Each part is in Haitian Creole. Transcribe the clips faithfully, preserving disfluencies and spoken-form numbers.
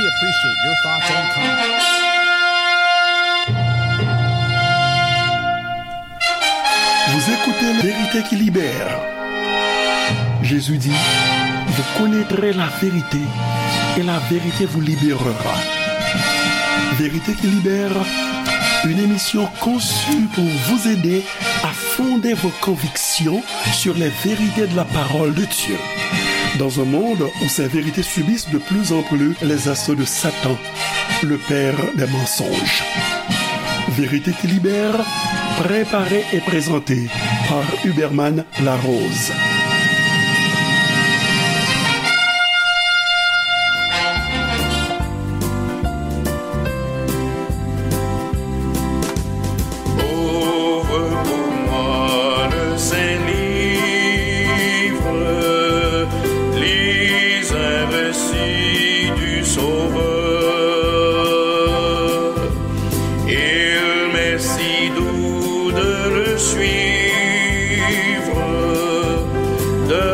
Appreciate your thoughts and comments. Vous écoutez La Vérité qui libère. Jésus dit, vous connaîtrez la vérité et la vérité vous libérera. Vérité qui libère, une émission conçue pour vous aider à fonder vos convictions sur les vérités de la parole de Dieu. Dans un monde où ces vérités subissent de plus en plus les assauts de Satan, le père des mensonges. Vérité qui libère, préparée et présentée par Huberman Larose. Ouvre pour moi le Saint-Livre, lis un récit du Sauveur. Il m'est si doux de le suivre, de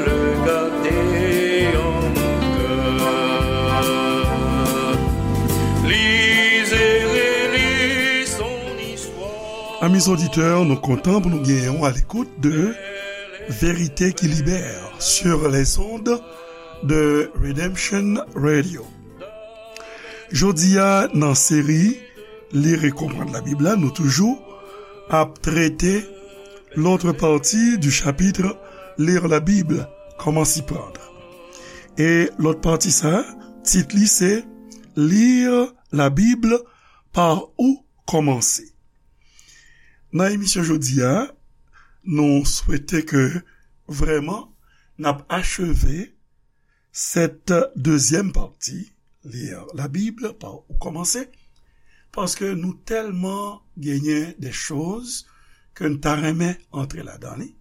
le garder en mon cœur. Lis et relis son histoire. Amis auditeurs, nou kontan pou nou genyen w a l'écoute de Vérité qui libère sur les ondes de Redemption Radio. Jodi a, nan seri Lire et comprendre la Bible la, nou toujou ap trete l'autre partie du chapitre Lire la Bible, comment s'y prendre. E lòt pati sa, tit li se Lire la Bible, par où commencer. Nan emisyon jodi a, nou swete ke vrèman n ap acheve cette deuxième partie, Lire la Bible, par où commencer, paske nou tèlman genyen de choz ke n ta renmen antre ladan li.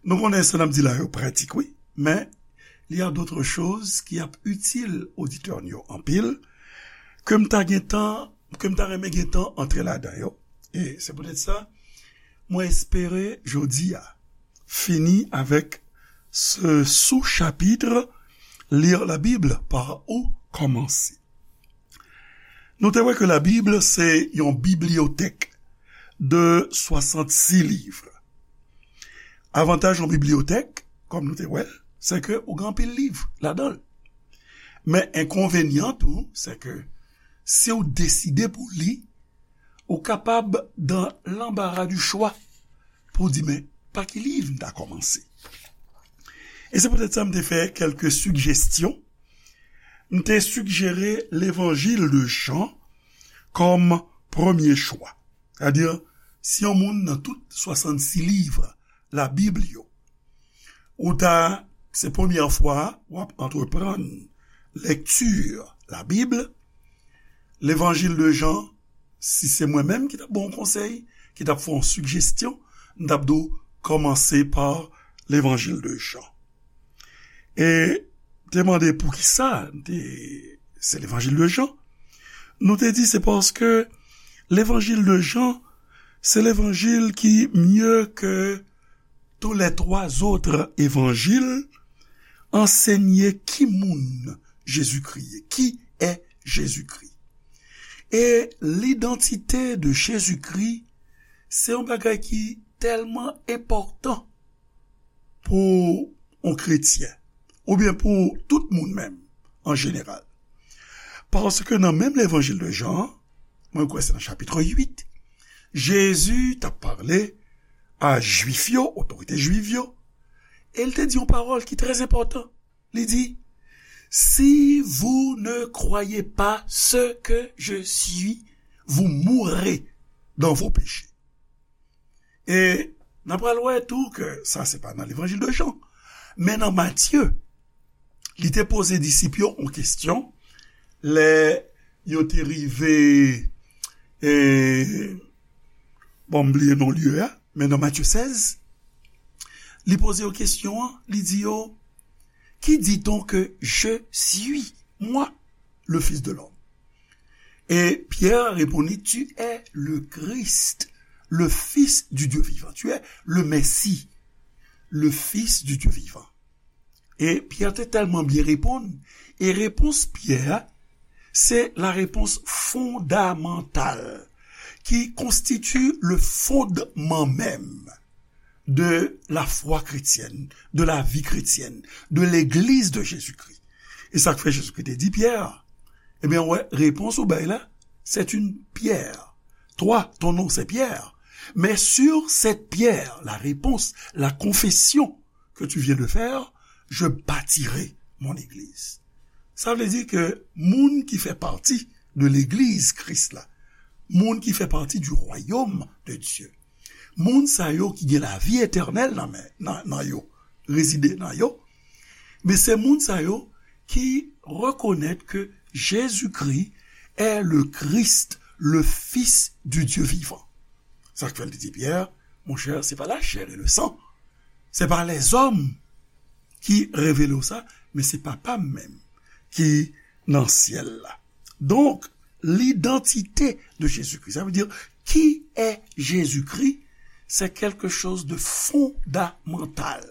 Nou konnen sa n ap di la yo pratik, wi, men il y a d'autres choses ki ap itil oditè n yo anpil, ke m ta gentan, ke m ta renmen gentan antre ladan yo. E se poutèt sa, mwen espere jodi a fini avèk ce sous-chapitre, Lire la Bible, par où commencer. Nou te wè ke Labib se yon bibliyotèk de swasannsis liv. Avantaj yon bibliyotèk, kòm nou te wè l, se ke ou gen anpil liv ladan l. Men enkonvenyan tou, se ke si w deside pou w li, ou kapab dans l'embarras du choix pou w di, men, pa ki liv m ta kòmanse? E se poutèt sa m te fè kèlke sigestyon. M te sigjere Levanjil de Jan kòm premye chwa. Sètadi, si yon moun nan tout swasannsis liv Labib yo, ou ta, se premyè fwa w ap antreprann lekti Labib, Levanjil de Jan, si se mwen menm ki t ap ba w yon konsèy, ki t ap fè yon sigestyon, m t ap di w kòmanse pa Levanjil de Jan. E te mande poukisa te, se Levanjil de Jan. Nou te di se paske Levanjil de Jan, se levanjil ki mieux que tous les trois autres évangiles, anseye ki moun Jezikri ye, qui est Jésus-Christ. E l'identité de Jésus-Christ, se yon bagay ki tèlman enpòtan pou yon kretyen, oubyen pou tout moun menm, an jeneral. Paske nan menm Levanjil de Jan an, mwen kwè se nan chapit uit, Jezi t ap pale a Jwif yo, otorite Jwif yo, e l te di yon pawòl ki trè enpòtan. Li di, si vous ne croyez pas ce que je suis, vous mourrez dans vos péchés. E n ap pral wè tou ke sa se pa nan Levanjil de Jan, men nan Matye, li te poze disip yo yon kesyon lè yo te rive, e, bon, m bliye non lye a, men nan Matye sèz, li poze yo kesyon an, li di yo, qui dit-on que je suis, moi, le Fils de l'homme? Et Pierre répondit, tu es le Christ, le Fils du Dieu vivant. Tu es le Messie, le Fils du Dieu vivant. E Pyè te tèlman byen reponn, e repons Pyè a, c'est la réponse fondamentale qui constitue le fondement même de la foi chrétienne, de la vie chrétienne, de l'Église de Jésus-Christ. E sa k fè Jezikri te di Pyè, ebyen, wè, repons ou bay la, c'est une pierre. Toi, ton nom, c'est Pierre. Mais sur cette pierre, la réponse, la confession que tu viens de faire, je bâtirai mon église. Sa vle di ke moun ki fè pati de legliz Kris la, moun ki fè pati du royaume de Dieu, moun sa yo ki gen lavi etènèl nan, men, nan, nan yo, rezide nan yo, men se moun sa yo ki rekonèt ke Jezikri est le Christ, le Fils du Dieu vivant. Sa k fè l te di Pyè, monchè, se pa la chair et le sang, se pa lèzòm ki revele w sa, men se Papa m menm ki nan syèl la. Donk, l'identité de Jésus-Christ, ça veut dire, qui est Jésus-Christ? C'est quelque chose de fondamental.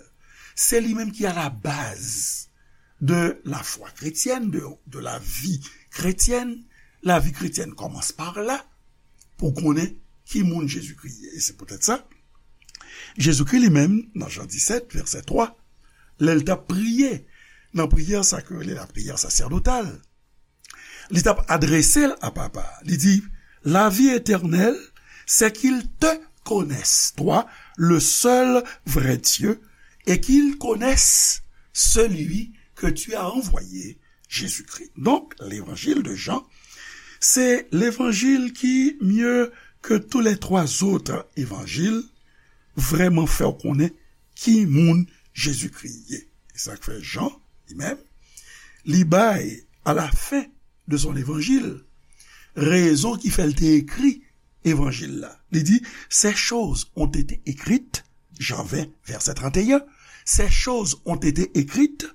C'est lui-même qui est à la base de la foi chrétienne, de, de la vie chrétienne. La vie chrétienne commence par là, pou konnen ki moun Jezikri ye. E se poutèt sa, Jezikri li menm, nan Jan disèt, vèsè twa, lè l t ap priye, nan priyè sa ke yo rele lapriyè sasèdotal, li t ap adrese l a Papa a. Li di, la vie éternelle, c'est qu'ils te connaissent, toi, le seul vrai Dieu, et qu'ils connaissent celui que tu as envoyé, Jésus-Christ. Donc, l'évangile de Jean, c'est l'évangile qui, mieux que tous les trois autres évangiles, vrèman fè w konnen ki moun Jezikri ye. E sa k fè Jan, li menm, li bay, à la fin de son évangile, rezon ki fè l te ekri evanjil la. Li di, ces choses ont été écrites, Jean vingt, verset trente et un, ces choses ont été écrites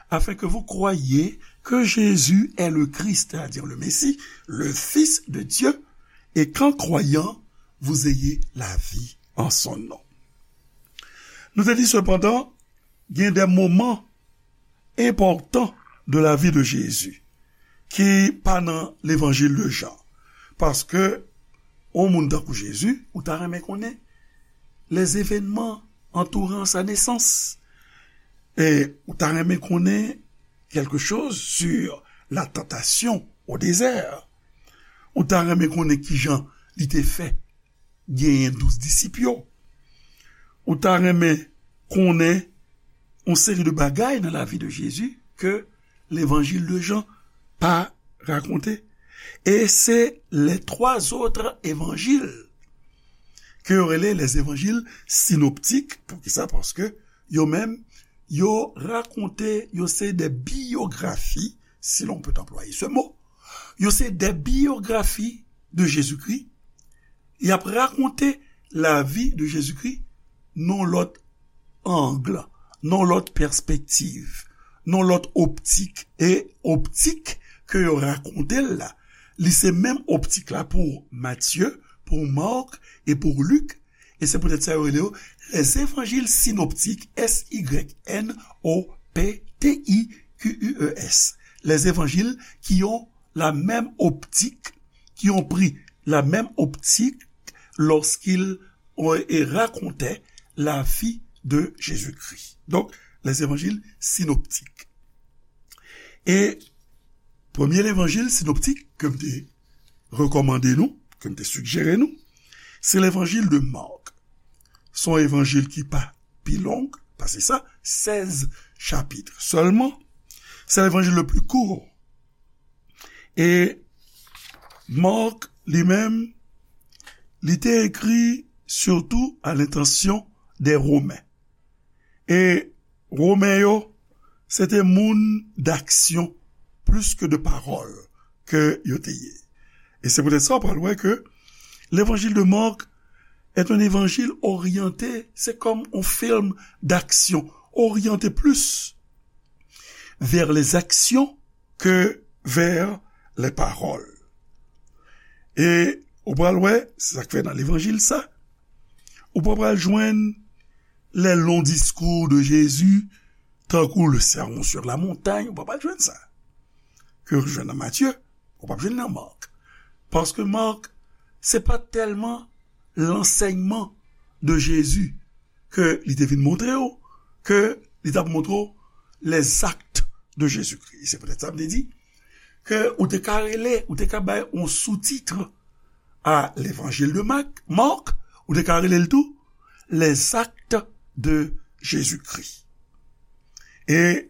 afin que vous croyiez que Jésus est le Christ, c'est-à-dire le Messie, le Fils de Dieu, et qu'en croyant, vous ayez la vie en son nom. Nou te di sepandan, gen de moman enpòtan de la vie de Jésus ki pa nan levanjil de Jan. Paske, yon moun tankou Jezi, ou ta renmen konnen les événements entourant sa naissance. E ou ta renmen konnen quelque chose sur la tentation au désert. Ou ta renmen konnen kijan li te fè genyen douz disip yo. Ou ta renmen konnen yon seri de bagay nan lavi de Jezi ke levanjil de Jan pa rakonte. E se les trois autres évangiles ke yo rele les évangiles synoptiques. Poukisa? Paske yo menm, yo rakonte, yo se de biyografi, si l'on peut employer ce mot. Yo se de biyografi de Jezikri. Y ap rakonte lavi de Jezikri nan lòt ang, nan lòt pèspektiv, nan lòt optik. E optik ke yo rakonte l la, li se menm optik la pou Matye, pou Mak e pou Lik. E se poutèt sa yo rele yo les évangiles synoptiques, S Y N O P T I Q U E S. Les évangiles qui ont la même optique, qui ont pris la même optique lorsqu'ils ont, et racontaient la vie de Jésus-Christ. Donc, les évangiles synoptiques. E premye levanjil sinoptik ke m te rekòmande nou, ke m te sigjere nou, se levanjil de Mak. Se yon evanjil ki pa pi long pase sa, sèz chapit sèlman. Se levanjil le plus court. E Mak, li menm, li te ekri surtout à l'intention des Romains. E Women yo, se te moun d'action plus que de parole ke yo te ye. E se poutèt sa, w pral wè ke l'évangile de Marc est un évangile orienté, c'est comme un film d'action, orienté plus vers les actions que vers les paroles. E ou pral wè, se sa k fè nan levanjil sa, ou pa pral jwenn les longs discours de Jésus, tankou le Sermon sur la montagne, ou pa pral jwenn sa. Ke w jwenn nan Matye, Ou p ap jwenn nan Mark. Paske Mark, se pa tèlman lansèyman de Jezi ke li te vin montre w, ke li t ap montre w les actes de Jésus-Christ. Se poutèt sa m te di ke ou te ka rele, ou te ka bay yon soutit a Levanjil de Mak, Mark, ou te ka rele l tou les actes de Jésus-Christ. E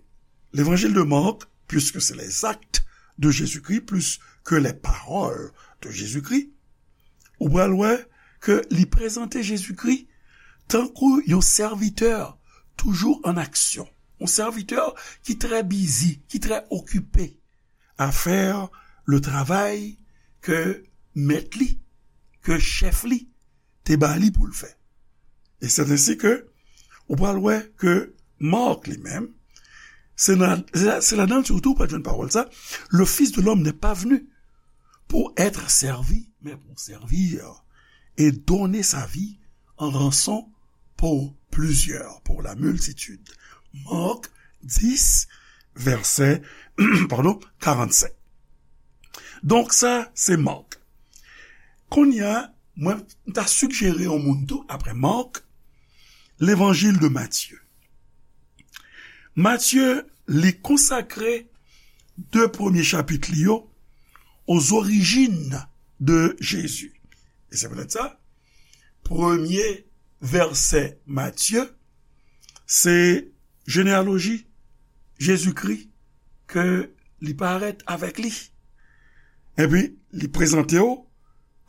Levanjil de Mark, puisque c'est les actes de Jésus-Christ plus que les paroles de Jésus-Christ, ou pral wè ke li prezante Jezikri tankou yon sèvitè toujou an aksyon, yon sèvitè ki trè bizi, ki trè okipe a fè le travay ke mèt li, ke chèf li te ba li pou l fè. E c'est ainsi que ou pral wè ke Mark li menm, se nan, se la, se ladan l sitou ou pral jwenn pawòl sa, le Fils de l'homme n'est pas venu pour être servi, mais pour servir et donner sa vie en rançon pour plusieurs, pour la multitude. Mark dis, vèsè, pardon, karannsenk. Donk sa, se Mark. Kounye a, mwen, m ta sigjere yon moun tou, apre Mark, Levanjil de Matye. Matye, li konsakre de premye chapit li yo aux origines de Jésus. E se poutèt sa, premye vèsè Matye, se jeneyaloji Jezikri ke li parèt avèk li. Epi, li prezante w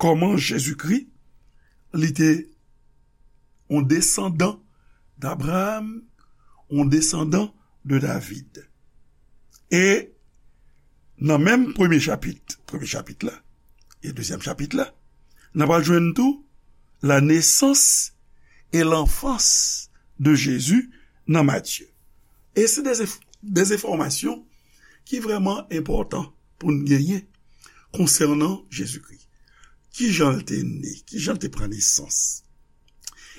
kòman Jezikri, li te yon desandan d'Abraham, yon desandan de David. E nan menm premye chapit, premye chapit la, e dezyèm chapit la, n ap al jwenn tou la naissance et l'enfance de Jésus nan Matye. E se de, de enfòmasyon ki vrèman enpòtan pou n genyen konsènan Jezikri. Kijan l te ne, kijan l te pran nesans.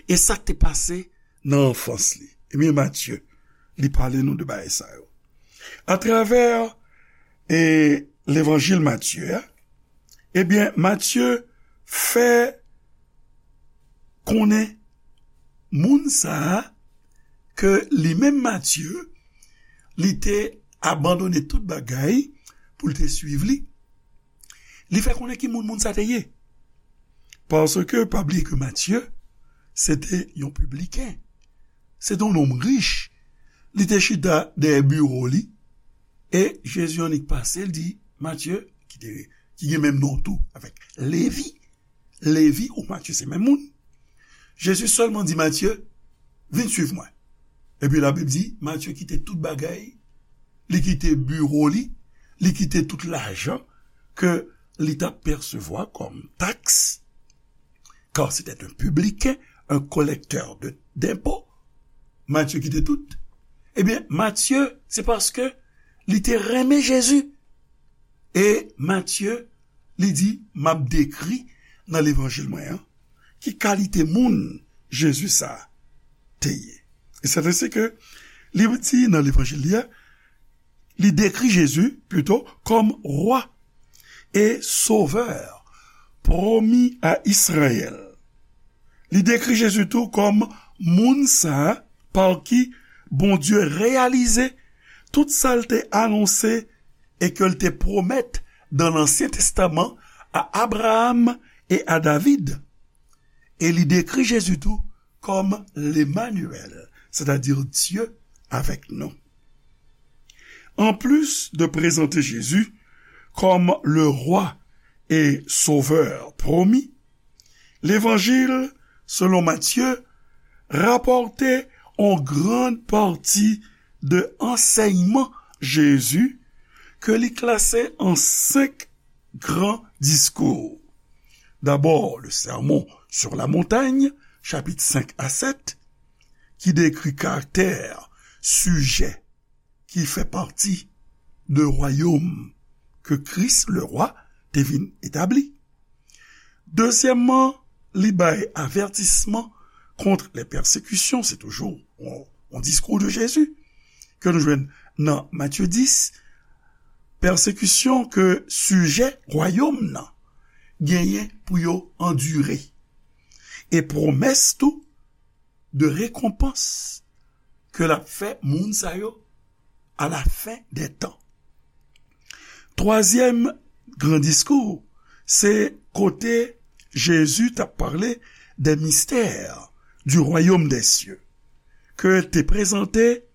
E sa k te pase nan anfans li. Ebyen, Matye, li pale nou de bagay sa yo. Atravè, e, levanjil Matye a, ebyen, Matye fè konnen moun sa a ke li menm Matye, li te abandone tout bagay pou l te swiv li. Li fè konnen ki moun moun sa te ye. Paske, pa bliye ke Matye, se te yon pibliken. Se te yon nonm rich. Li te chita dèyè biwo li. E Jezi annik pase, l di, Matye, ki te, ki gen menm non tou avèk Levi. Levi ou Matye se menm moun. Jezi sèlman di Matye, vin swiv mwen. Epi Labib di, Matye kite tout bagay, li kite biwo li, li kite tout lajan ke li t ap pèsevwa kòm taks, car c'était un publicain, un collecteur de, d'impôts. Matye kite tout. Ebyen, Matye, se paske li te renmen Jezi. E Matye, li di, m ap dekri nan levanjil mwen an, ki kalite moun Jezi sa a te ye. E se te se ke li di nan levanjil li a, li dekri Jezi, pito, kòm rwa e sovè pwomi a Izrayèl. Li dekri Jezi tou kòm moun sa a pa ki Bondye reyalize tout sa l te anonse e ke l te pwomèt dans l'Ancien Testament à Abraham et à David. E li dekri Jezi tou kòm Lemanyèl, sètadi Dye avèk nou. Anplis de prezante Jezi kòm le rwa e sovè pwomi, levanjil selon Matye rapòte yon gran pati de ansèyman Jezi ke li klase an senk gran diskou. Dabò, le Sermon sur la Montagne, chapit senk a sèt, ki dekri karaktè sijè ki fè pati de wayòm ke Kris, le rwa, te vin etabli. Dezyèmman, li bay avètisman contre les persécutions, se toujou yon, yon diskou de Jezi ke nou jwenn nan Matye dis, pèsekisyon ke sijè wayòm nan genyen pou yo andire, e pwomès tou de rekonpans ke l ap fè moun sa yo à la fin des temps. Twazyèm gran diskou, se kote Jezi t ap pale des mystères du royaume des cieux, ke l te prezante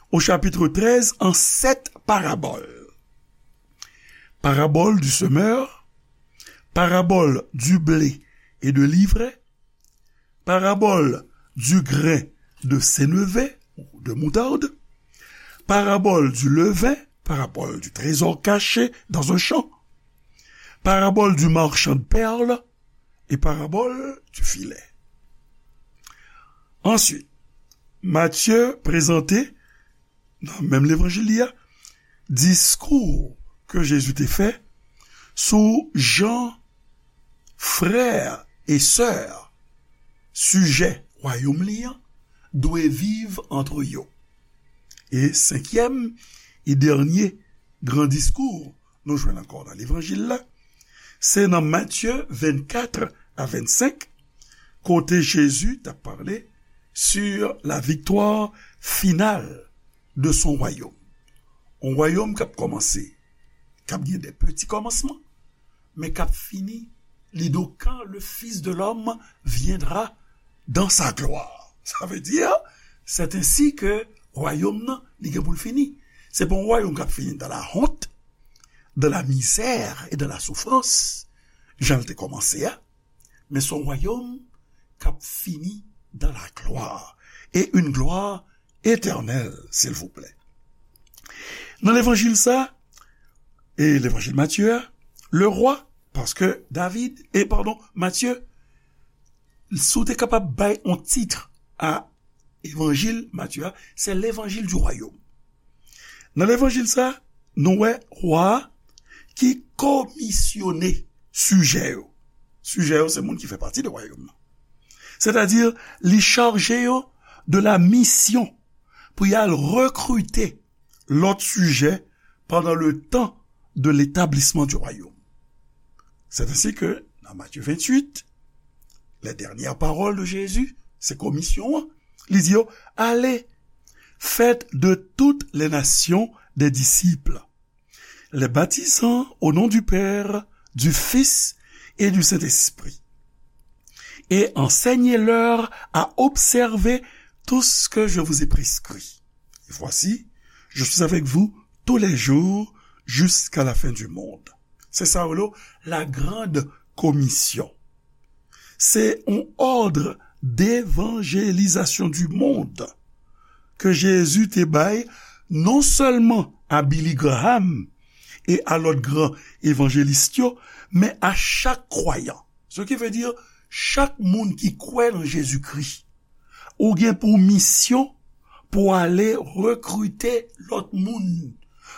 au chapitre treize en sept paraboles. Parabole du semeur, parabole du blé et de l'ivraie, parabole du grain de sénévé ou de moutarde, parabole du levain, parabole du trésor caché dans un champ, parabole du marchand de perles et parabole du filet. Answit, Matye prezante, nan menm levanjil li a, diskou ke Jezi te fè sou jan frè e sè sijè wayòm li an dwe viv antre yo. E senkyèm e dènye gran diskou nou jwenn ankò nan levanjil la, se nan Matye vennkat a vennsenk, kote Jezi t ap pale sur la victoire finale de son royaume. Yon wayòm k ap kòmanse, k ap gen de peti kòmansman, men k ap fini, li di w, quand le Fils de l'homme viendra dans sa gloire. Sa vle di, c'est ainsi que wayòm nan, li gen pou l fini. Se pa yon wayòm k ap fini dans la honte, dans la misère et dans la souffrance, jan l te kòmanse a, men se yon wayòm k ap fini dans la gloire, et une gloire éternelle, s'il vous plaît. Nan levanjil sa, e levanjil Matye a, le roi, paske David, e padon, Matye, si w te kapab bay yon tit a evanjil Matye a, se levanjil du royaume. Nan levanjil sa, nou wè wa a ki komisyone sijè yo. Sijè yo se moun ki fè pati de wayòm nan. Sètadi, li chaje yo de la misyon pou y al rekrite lòt sijè pandan le tan de l'établissement du royaume. C'est ainsi que, dans Matthieu vingt-huit, les dernières paroles de Jésus, se komisyon an, li di yo, allez, faites de toutes les nations des disciples, les baptisant au nom du Père, du Fils et du Saint-Esprit, et enseignez-leur à observer tout ce que je vous ai prescrit. Et voici, je suis avec vous tous les jours jusqu'à la fin du monde. Se sa yo rele la grande commission. Se yon òd devanjelizasyon di mond ke Jezi te bay non sèlman a Billy Graham e a lòt gran evanjelis yo, men a chak kwayan. Ce qui veut dire, chak moun ki kwè nan Jezikri, ou gen pou misyon pou ale rekrite lòt moun,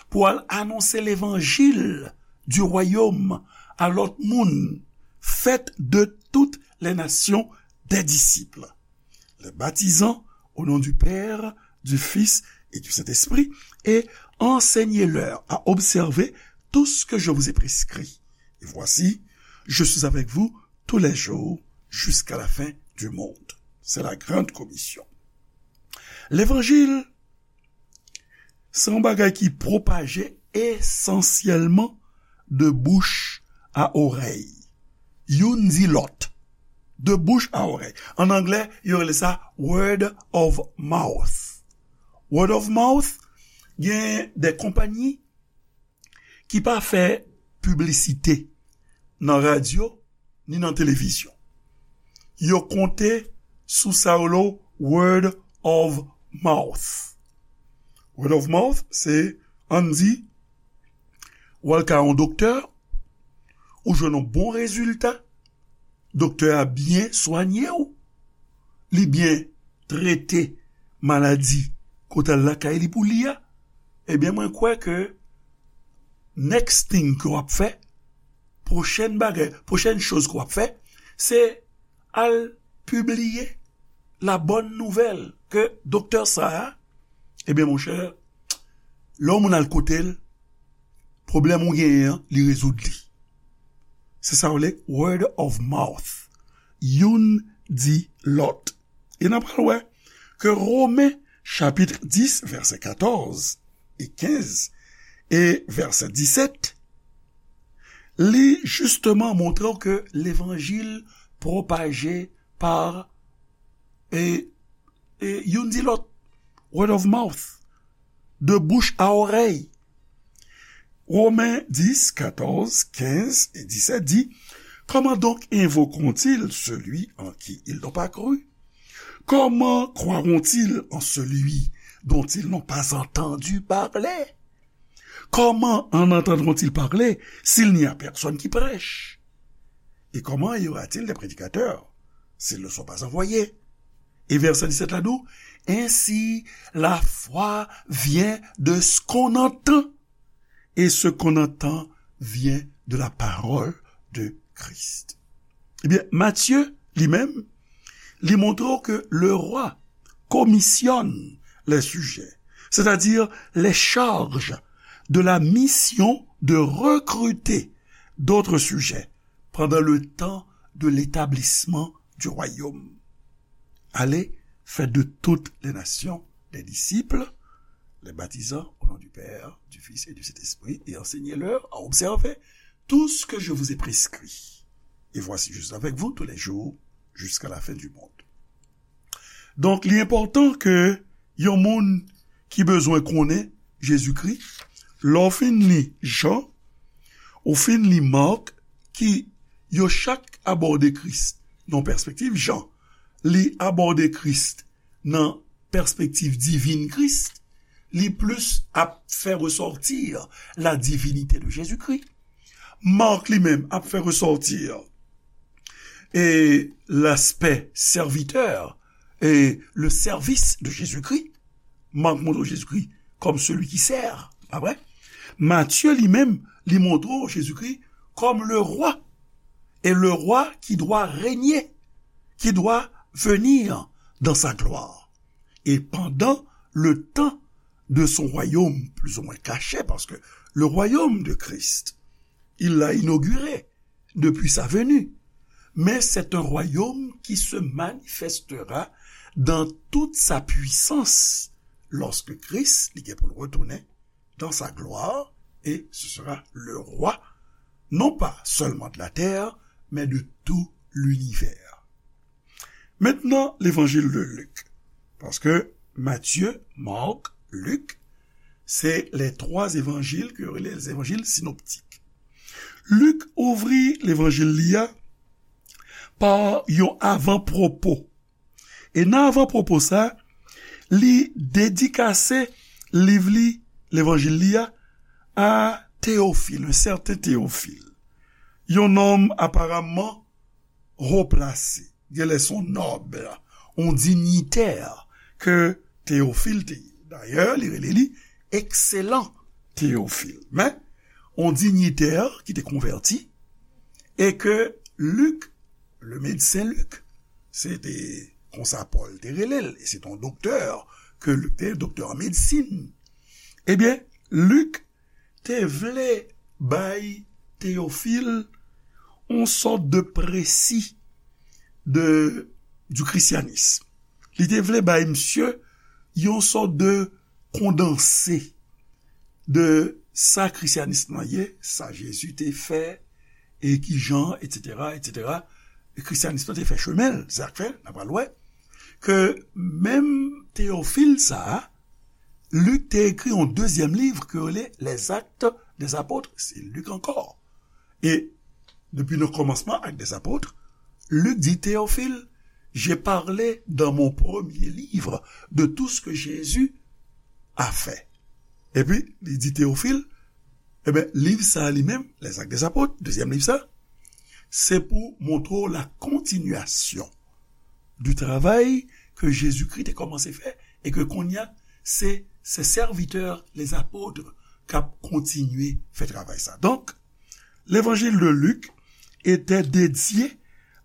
pou al anonse levanjil du royaume a lòt moun. Faites de toutes les nations des disciples, les baptisant au nom du Père, du Fils et du Saint-Esprit, et enseignez-leur à observer tout ce que je vous ai prescrit. Et voici, je suis avec vous tous les jours jusqu'à la fin du monde. C'est la grande commission. Levanjil, se yon bagay ki pwopaje esansyèlman de bouch a orèy. Youn di lòt. De bouch a orèy. An anglè, yo rele sa word of mouth. Word of mouth, gen de konpayi ki pa fè piblisite nan radyo ni nan televizyon. Yo konte sou sa yo rele word of mouth. Word of mouth, se, ann di, w al kay yon doktè, ou jwenn yon bon rezilta, doktè a byen swanye w, li byen trete maladi ke w t al lakay li pou li a, ebyen, mwen kwè ke next thing ke w ap fè, pwochèn bagay, pwochèn choz ke w ap fè, se al pibliye la bòn nouvèl ke doktè sa a, ebyen, monchè, lè yon moun al kote l, pwoblèm ou genyen an, li rezoud li. Se sa yo rele word of mouth. Youn di lòt. E n ap pral wè ke Women chapit dis, vèsè katòz e kenz e vèsè disèt, li jisteman montre w ke levanjil pwopaje pa, e, e youn di lòt, word of mouth, de bouche à oreille. Romains dix, quatorze, quinze et dix-sept dit, comment donc invoqueront-ils celui en qui ils n'ont pas cru ? Comment croiront-ils en celui dont ils n'ont pas entendu parler ? Comment en entendront-ils parler s'il n'y a personne qui prêche ? Et comment y aura-t-il des prédicateurs s'ils ne sont pas envoyés ? Et verset dix-sept là-dedans, ainsi la foi vient de ce qu'on entend, et ce qu'on entend vient de la parole de Christ. Ebyen, Matye, li menm, li montre ke le roi commissionne les sujets, c'est-à-dire les charge de la mission de recruter d'autres sujets pendant le temps de l'établissement du royaume. Allez, faites de toutes les nations des disciples, les baptisant au nom du Père, du Fils et du Saint-Esprit, et enseignez-leur à observer tout ce que je vous ai prescrit. Et voici, je suis avec vous tous les jours jusqu'à la fin du monde. Donk, li enpòtan ke yon moun ki bezwen konnen Jezikri, lè w fin li Jan, ou fin li Mak, ki yo chak abòde Kris nan pèspektiv Jan, li abòde Kris nan pèspektiv divin Kris, li plis ap fè resòti la divinité de Jésus-Christ. Mak li menm ap fè resòti e l'aspect serviteur et le service de Jésus-Christ. Mak montre Jezikri kòm celui qui sert, pa vre? Matye li menm, li montre Jezikri kòm le roi, et le roi qui doit régner, qui doit venir dans sa gloire. Et pendant le temps de son royaume, plus ou moins caché, parce que le royaume de Christ, il l'a inauguré depuis sa venue. Mais c'est un royaume qui se manifestera dans toute sa puissance lorsque Christ, li gen pou l retounen dans sa gloire, et ce sera le roi, non pas seulement de la terre, mais de tout l'univers. Maintenant, l'évangile de Luc. Paske Matye, Mak, Lik, se les trois évangiles ke yo rele les évangiles synoptiques. Lik ouvri levanjil li a pa yon avanpwopo. E nan avanpwopo sa, li dedikase liv li, levanjil li a, a Théophile, un certain Théophile. Yon nonm aparamman wo plase, genlè se yon nòb, yon dinyitè ke Théophile te ye. Dayè, li rele li ekselan Théophile. Men, yon dinyitè ki te konvèti e ke Lik, le médecin Lik, se te konsa Pòl te rele l, e se te yon doktè ke Lik te, doktè an medsin. Ebyen, Lik te vle bay Théophile yon sòt de précis de, du christianisme. Li te vle bay misye yon sòt de kondanse de sa krisyanis lan ye, sa Jezi te fè, e ki jan, etsetera, etsetera. E krisyanis lan te fè chemen l, se sa k fè, n a pral wè, ke menm Théophile sa a, Lik te ekri yon dezyèm liv ke yo rele Les Actes des Apôtres, se Lik ankò. E depi nan kòmansman Actes des Apôtres, Lik di Théophile, j'ai parlé dans mon premier livre de tout ce que Jésus a fait. Epi, li di Théophile, ebyen, liv sa a li menm, Les Actes des Apôtres, dezyèm liv sa, se pou montre w la continuation du travail ke Jezikri te kòmanse fè e ke kounye a, se, se sèvitè, les apôtres, k ap kontinye fè travay sa. Donk, l'évangile de Luc était dédié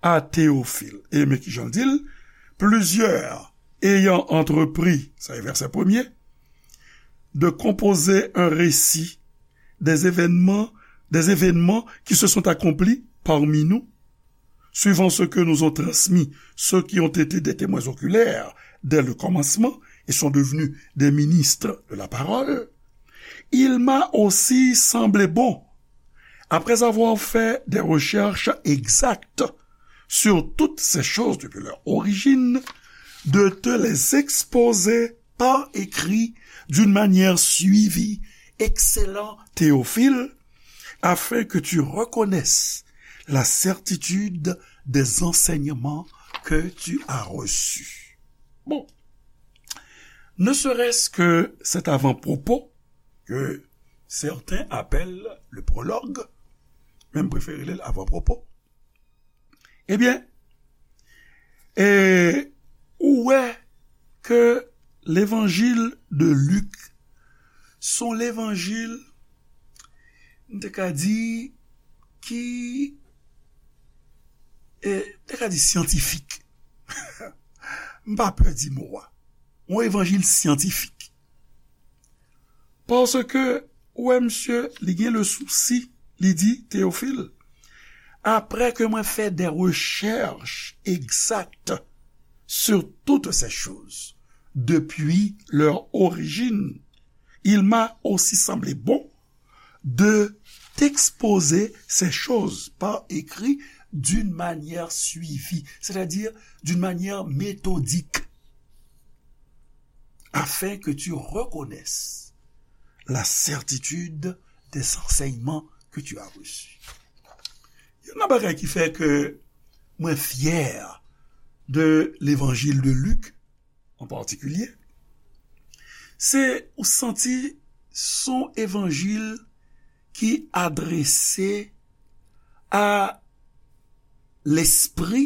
à Théophile. E men ki jan l di l, plusieurs ayant entrepris, sa e vèsè premye, de composer un récit des événements, des événements qui se sont accomplis parmi nous, suivant ce que nous ont transmis ceux qui ont été des témoins oculaires dès le commencement et sont devenus des ministres de la parole, il m'a aussi semblé bon, après avoir fait des recherches exactes sur toutes ces choses depuis leur origine, de te les exposer par écrit d'une manière suivie, excellent Théophile, afin que tu reconnaisses la certitude des enseignements que tu as reçus. Bon, ne serait-ce que cet avant-propos que certains appellent le prologue, men m prefere li l avan pwopo. Ebyen, e, ou wè ke levanjil de Lik se yon levanjil, m te ka di, ki, e, m te ka di syantifik. M pa pè di mo a. Yon evanjil syantifik. Paske, ou wè, misye, li gen le sousi, li di, Théophile, après que moi fait des recherches exactes sur toutes ces choses, depuis leur origine, il m'a aussi semblé bon de t'exposer ces choses par écrit d'une manière suivie, c'est-à-dire d'une manière méthodique, afin que tu reconnaisses la certitude des enseignements que tu as reçus. Youn nan bagay ki fè ke mwen fyè de levanjil de Lik an patikilye, se ou santi se yon evanjil ki adrese a lespri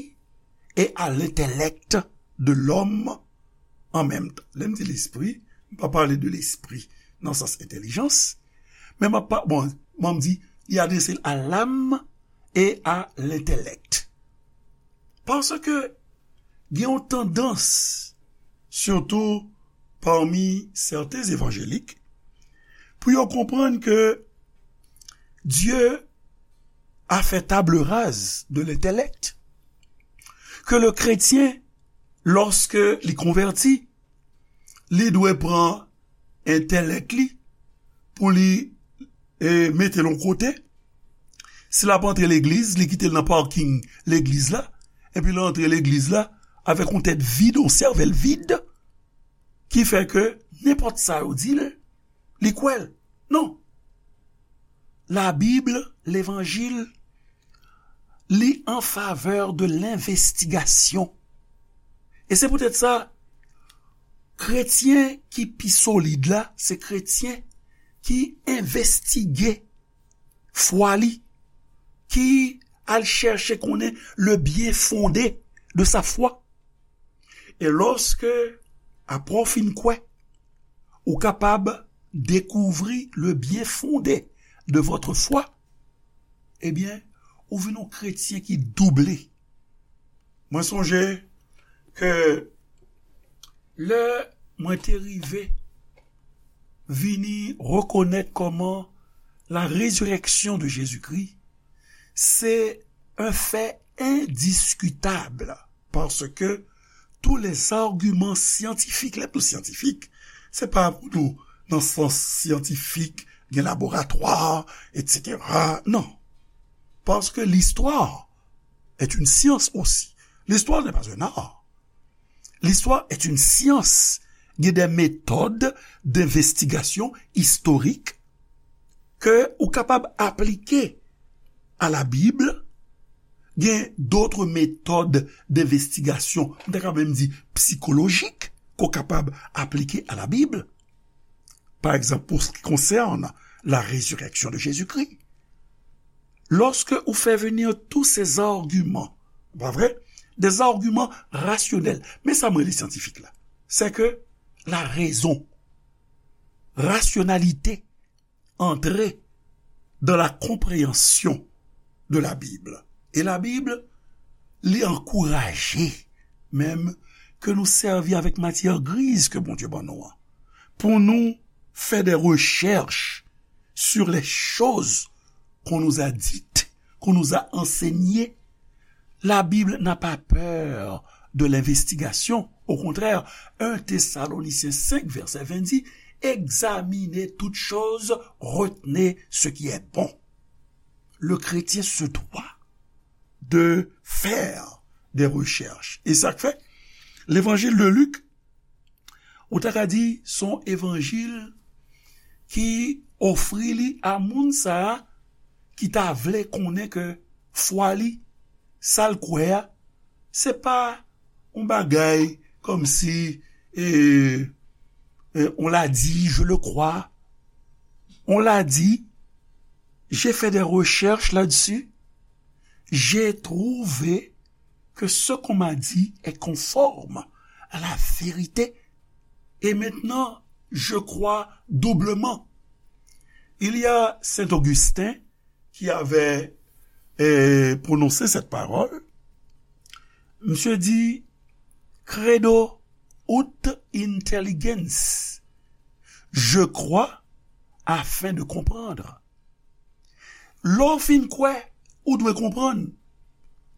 e a lentelèk de lòm an menm tan. Lè m di lespri, m pa pale de lespri nan sans entèlijans, men m ap pa, bon, bon, m di, li adrese l a lam e a lentelèk. Paske gen yon tandans, sitou pami sèten evanjelik, pou yo konprann ke Dye a fè table rase de l'intellect, ke le kretyen, lòske li konvèti, li dwe pran entèlèk li pou li, e, mete l yon kote. Si l ap antre legliz, li kite l nan parking legliz la, epi l antre legliz la avèk yon tèt vid, yon sèvèl vid, ki fè ke nenpòt sa yo di l, li kwè l. Non. Labib, levanjil, li an favè de lenvestigasyon. E se poutèt sa, kretyen ki pi solid la, se kretyen ki envestige fwa li, ki al chèche konnen le bien fondé de sa foi. E lòske, apre w fin kwè, ou kapab dekouvri le bien fondé de votre foi, ebyen, ou vin yon kretyen ki double. Mwen sonje ke lè mwen te rive vini rekonèt kòman la résurrection de Jésus-Christ, c'est un fait indiscutable, parce que tous les arguments scientifiques, lè m di syantifik, se pa pou nou nan sans syantifik, gen laboratwa, et cetera. Non. Parce que l'histoire est une science aussi. L'histoire n'est pas un art. L'histoire est une science. Il y a des méthodes d'investigation historique ke ou kapab aplike a la Bib. Gen d'autres méthodes d'investigation, m ta ka menm di psikolojik, ke w kapab aplike a la Bib. Pa egzanp, pour ce qui concerne la résurrection de Jésus-Christ, lorsque ou fait venir tous ces arguments, pa vre? Des arguments rationnels. Men sa m rele syantifik la. C'est que la raison, rationalité, entrer dans la compréhension de la Bible. E la Bib, li ankouraje menm ke nou sèvi avèk matyè griz ke Bondye ban nou an, pou nou fè de rechèch sur les choses qu'on nous a dites, qu'on nous a enseignées. La Bible n'a pas peur de l'investigation. Au contraire, un Thessaloniciens cinq, verset vingt dit, examinez toutes choses, retenez ce qui est bon. Le chrétien se doit de faire des recherches. E sa k fè, levanjil de Lik, ou ta ka di, se yon evanjil ki ofri li a moun sa a ki ta vle konnen ke fwa li, sa l kwè a, se pa yon bagay kòmsi, e, e, on l'a dit, je le crois. On l'a dit, j'ai fait des recherches là-dessus, j'ai trouvé que ce qu'on m'a dit est conforme à la vérité. Et maintenant, je crois doublement. Il y a Saint Augustin qui avait, euh, prononcé cette parole. Monsieur dit, credo ut intelligens. Je crois afin de comprendre. Lè w fin kwè, ou dwe konprann.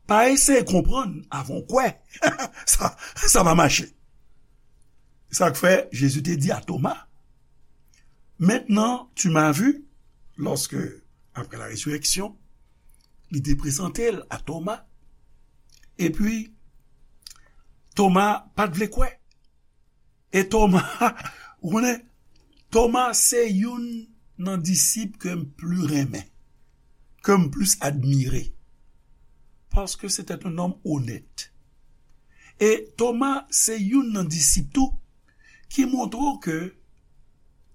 Pa eseye konprann avan w kwè. Sa, sa pa mache. Sa k fè Jezi te di a Toma, maintenant tu m'as vu, lòske, apre la rezireksyon, li te prezante l a Toma, epi Toma pa t vle kwè. E Toma, ou konnen, Toma se youn nan disip ke m pli renmen, ke m plis admire, paske se te yon nonm onèt. E Toma se youn nan disip tou ki montre w ke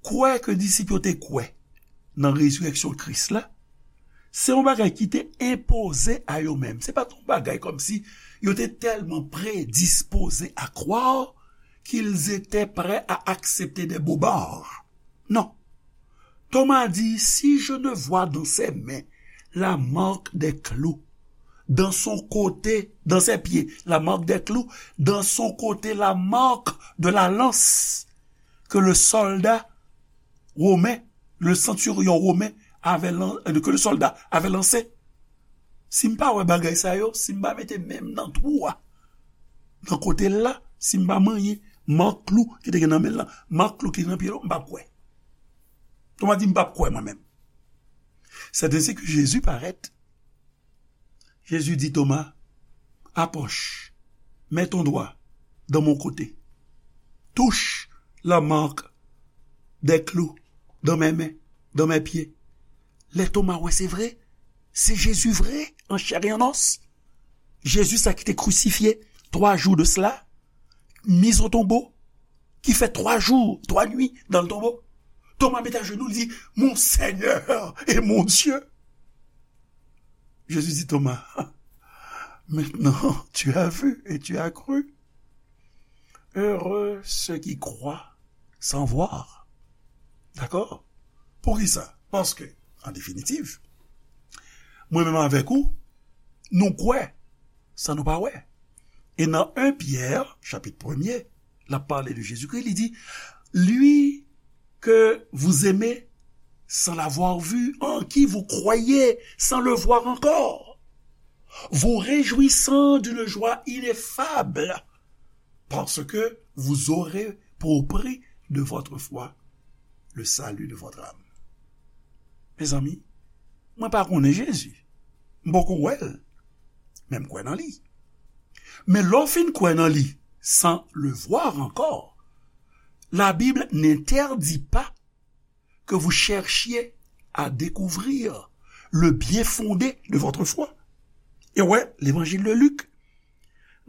kwè ke disip yo te kwè nan rezireksyon Kris la, se yon bagay ki te enpoze a yo menm. Se pa t yon bagay kòmsi yo te tèlman predispoze à croire qu'ils étaient prêts à accepter des bobards. Non. Thomas dit, si je ne vois dans ses mains la marque des clous, dans son côté, dans ses pieds, la marque des clous, dans son côté, la marque de la lance que le soldat romain, le centurion romain avait lan-, euh, que le soldat avait lancé. Si m pa wè bagay sa yo, si m pa mete men m nan twou a, nan kote l la, si m pa manyen mak klou ki te gen nan men l lan, mak klou ki te nan pye l, m p ap kwè. Toma di, m p ap kwè mwen menm. C'est ainsi que Jésus paraît. Jésus dit, Thomas, approche, mets ton doigt dans mon côté. Touche la marque des clous dans mes mains, dans mes pieds. Lè Toma wè se vre, se Jezi vre, an chè e an os. Jezi sa ki te krisifye twa jou de sela, mis au tombeau, ki fè twa jou, twa nwi dans le tombeau. Toma met ajenou, li di, mon Seigneur et mon Dieu. Jésus dit, Thomas, maintenant tu as vu et tu as cru. Heureux ceux qui croient sans voir. Dakò? Poukisa? Paske, an definitiv, mwen menm avèk ou, nou kwè san nou pa wè. E nan en Pyè, chapit premye, l ap pale de Jezikri, li di, lui que vous aimez sans l'avoir vu, en qui vous croyez sans le voir encore, vous réjouissant d'une joie ineffable, parce que vous aurez pour prix de votre foi le salut de votre âme. Mezanmi, mwen pa konnen Jezi. M poko wè l. Men m kwè nan li. Men lè w fin kwè nan li, sans le voir encore, la Bible n'interdit pas que vous cherchiez à découvrir le bien fondé de votre foi. E wè, Levanjil de Lik,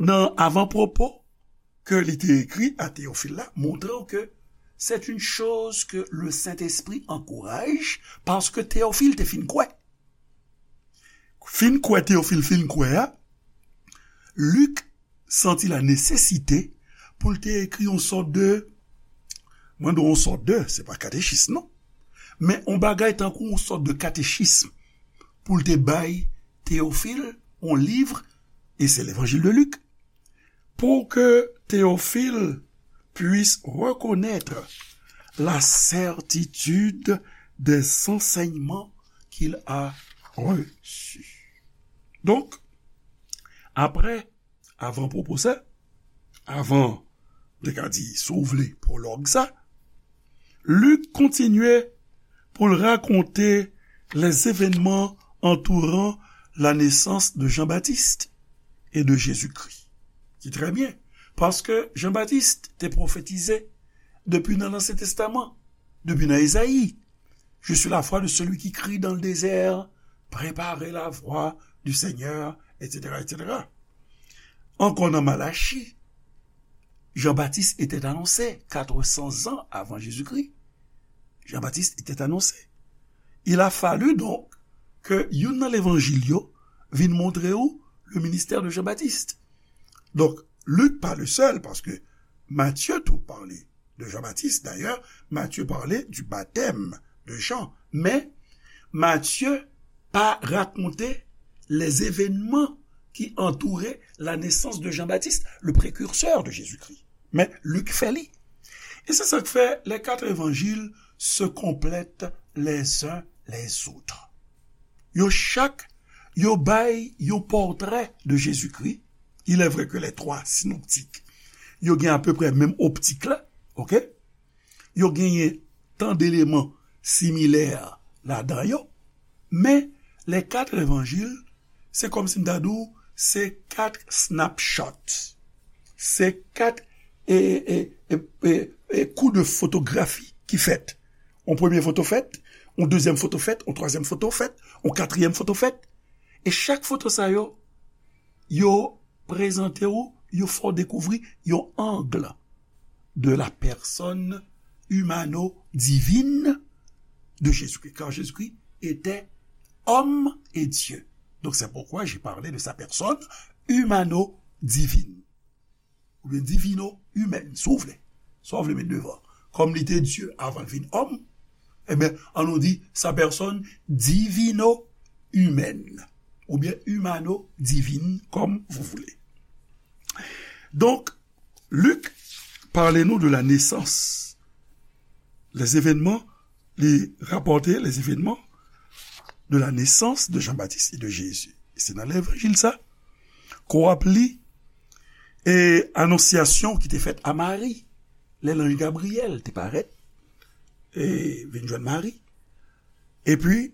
nan avan pwopo ke li te ekri a Teyofil la, montre w ke c'est une chose que le Saint-Esprit encourage, paske Teyofil te fin kwè. Fin kwè, Teyofil fin kwè a, Lik santi la nesesite pou l te ekri yon sòt de, mwen di w yon sòt de, se pa katechis non, men yon bagay tankou yon sòt de katechism pou l te bay Teyofil, yon liv, e se Levanjil de Lik, pour que Théophile puisse reconnaître la certitude des enseignements qu'il a reçus. Donk, apre, avan pwopo sa, avan, m te ka di, si w vle, pwològ sa, Lik kontinye pou l rakonte les événements entourant la naissance de Jean-Baptiste et de Jésus-Christ. Ki trè byen, paske Jan Batis te pwofetize depi nan Ansyen Testaman, depi nan Ezayi, je suis la voix de celui qui crie dans le désert, préparez la voie du Seigneur, et cetera, et cetera. Ankò nan Malachi, Jean-Baptiste était annoncé quatre cents ans avant Jésus-Christ. Jean-Baptiste était annoncé. Il a fallu donc ke youn nan levanjil yo vin montre ou le ministère de Jean-Baptiste. Donk, Lik pa le sèl, paske Matye tou pale de Jean-Baptiste. Dayè, Matye pale du baptême de Jean. Men, Matye pa rakonte les événements qui entouraient la naissance de Jean-Baptiste, le précurseur de Jésus-Christ. Men Lik fè li. E se sa k fè les quatre évangiles se complètent les uns les autres. Yo chak, yo bay yon pòtrè de Jezikri. Il est vrai que les trois synoptiques, yo gen apeprè menm optik la, oke? Yo genyen tan deleman similè ladan yo, men les quatre évangiles, se kòmsi m ta di w, se kat snapshot. Se kat, e, e, e, e, e, kou de fotografi ki fèt. On premye foto fèt, on dezyèm foto fèt, on twazyèm foto fèt, on katriyèm foto fèt. E chak foto sa yo, yo prezante w, yo fè w dekouvri yon ang de la personne humano-divine de Jésus-Christ, car Jésus-Christ était homme et Dieu. Donc c'est pourquoi j'ai parlé de sa personne humano-divine, oubyen divino-humaine, si w vle. Sa w vle met devan. Kòm li te Dye avan l vin òm, ebyen, ann nou di sa personne divino-humaine, oubyen humano-divine, comme vous voulez. Donk, Lik pale nou de la nesans. Les événements, li rapòte les événements de la naissance de Jean-Baptiste et de Jésus. E se nan levanjil sa, ke w ap li, e anonsyasyon ki te fèt a Mari, lè lanj Gabriyèl te parèt, e vin jwenn Mari. Epi,